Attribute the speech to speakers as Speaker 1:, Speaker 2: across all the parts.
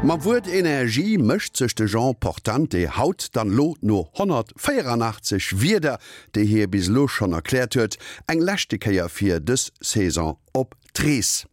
Speaker 1: Mam Wuert Energie mécht sech de Jean Portante haut dann elo no 184 Wierder, déi hie bis elo schonn erkläert huet, eng leschte Kéier fir dës Saison op d'Rees.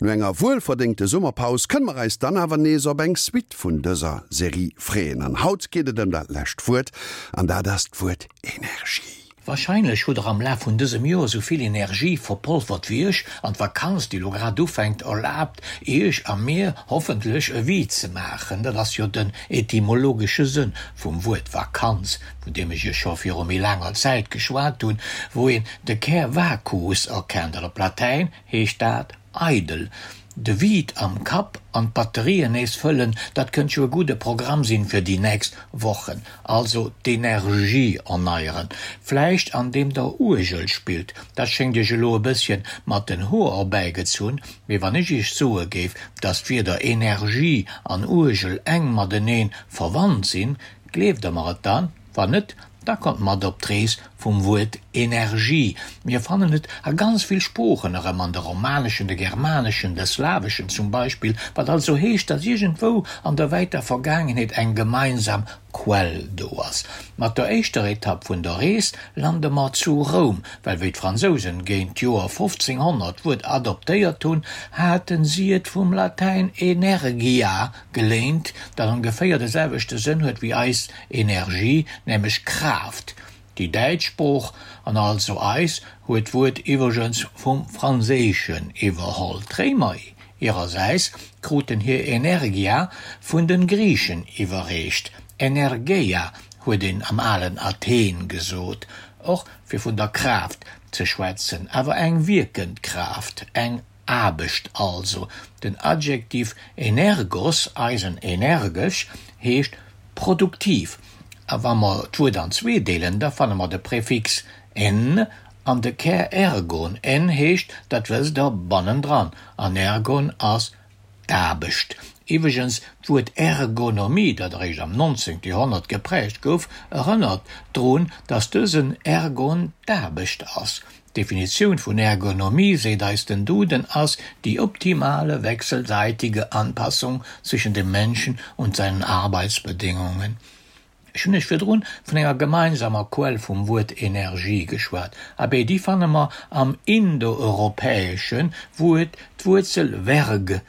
Speaker 1: No enger wuelverdéngte Summerpaus kënne mer eis dann awer nees op eng Suite vun dëser Serie freeën. An haut geet et ëm dat lescht Wuert, an dat ass d'Wuert Energie.
Speaker 2: Wahrscheinlech hutt der am Laf vun dësem Joer sou vill Energie verpolfert wéi ech, an d'Vakanz, déi lo grad ufänkt, erlaabt iech a mir hoffentlech e Vide ze maachen. Dat ass jo den etymologesche Sënn vum Wuert Vakanz, vun deem ech iech scho viru méi laanger Zäit geschwat hunn, wou een de Kär vacus erkennt, an op Latäin heescht dat eidel. De Vide am Kapp an d'Batterien nees fëllen, dat kënnt jo e gudde Programm sinn fir déi nächst Wochen. Also d'Energie erneieren, vläicht an deem der Uergel spillt. Dat schéngt iech elo e bësschen mat den Hoer erbäigezunn, mee wann ech iech soe géif, dass d'Wierder Energie an Uergel enk mateneen verwannt sinn, gleeft der mer et dann? Wann net, da kommt mat op d'Rees vum Wuert Energie. Mir fannen et a ganz vill Sproochen erëm, an de romaneschen, de germaneschen, de slaweschen zum Beispill, wat also heescht, datt iergendwou an der wäiter Vergaangenheet eng gemeinsam Quell do ass. Mat der éischter Etapp vun der Rees lande mer zu Roum, well wéi d'Fransousen géint d'Joer 1500 d'Wuert adoptéiert hunn, haten si et vum Latäin energia geléint, dat ongeféier de selwechte Sënn huet wéi eis Energie, nämlech Kraaft. Déi däitsch Sprooch, an also eis, huet d'Wuert iwwregens vum Franséischen iwwerholl. D'Réimer hirersäis kruten hir Energia vun de Griichen iwwerreecht. Energeia huet een am alen Athen gesot, och fir vun der Kraaft ze schwätzen, awer eng wierkend Kraaft, eng Aarbecht also. Den Adjektiv energos, eisen energesch, heescht produktiv. A wa mer d'Wuert an zwee deelen, da fanne mer de Prefix en an de Kär ergon. En heescht, dat wësst Der, bannendran, an ergon ass d'Aarbecht. Iwwregens, d'Wuert Ergonomie, dat eréischt am 19. Joerhonnert geprägt gouf, erënnert drun, datt dësen ergon d'Aarbecht ass. D'Definitioun vun Ergonomie, seet eis den Duden, ass die optimale wechselseitige Anpassung zwischen dem Menschen und seinen Arbeitsbedingungen. Ech hunn iech virdrun vun enger gemeinsamer Quell vum Wuert Energie geschwat. Abee, déi fanne mer am Indoeuropäeschen, wou et d'Wuerzel verg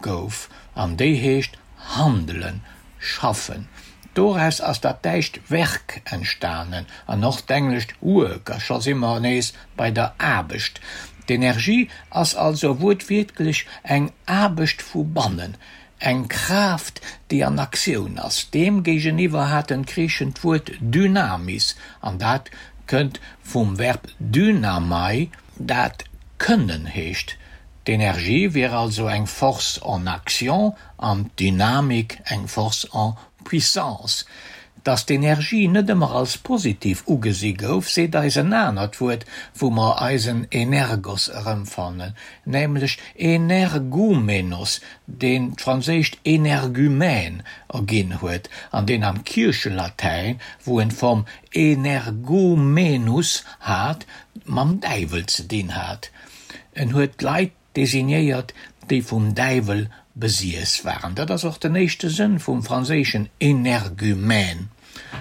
Speaker 2: gouf, an déi heescht handelen, schaffen. Doraus ass dat däitscht Werk entstanen an och d'englescht work, a scho si mer nees bei der Aarbecht. D'Energie ass also wuertwiertlech eng Aarbecht vu bannen, eng Kraaft, déi an Aktioun ass. Deem géigeniwwer haten d'Griichen d'Wuert dynamis, an dat kënnt vum Verb dynamai, dat kënnen heescht. D'Energie wier also eng Force en action an d'Dynamik eng Force en puissance. Dass d'Energie net ëmmer als positiv ugesi gouf, seet eis en anert Wuert, wou mer eisen Energos erëmfannen, nämlech energoumenos, deen d'franséischt énergumène erginn huet an deen am Kierchelatäin, wou en d'Form energoumenus hat, mam Däiwel ze dinn hat. En huet Leit designéiert, déi vum Däiwel besiess waren. Dat ass och den éischte Sënn vum franséischen énergumène.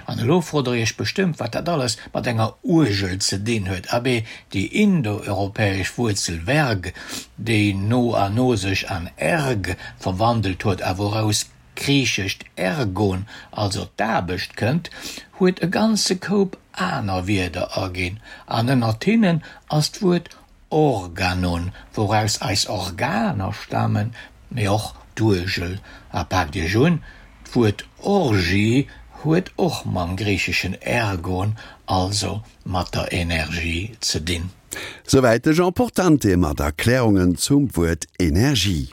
Speaker 2: An elo frot der iech bestëmmt, wat dat alles mat enger Uergel ze dinn huet. Abee, déi indoeuropäesch Wuerzel verg, déi no a no sech an erg verwandelt huet a wouraus d'griichescht ergon, also d'Aarbecht, kënnt, huet e ganze Koup aner Wierder erginn. An ënnert hinnen ass d'Wuert Organon, wouraus eis Organer stamen, mee och d'Uergel. A paakt iech un, d'Wuert Orgie huet och mam griicheschen ergon, also mat der Energie ze dinn.
Speaker 1: Souwäit de Jean Portante mat Erklärungen zum Wuert Energie.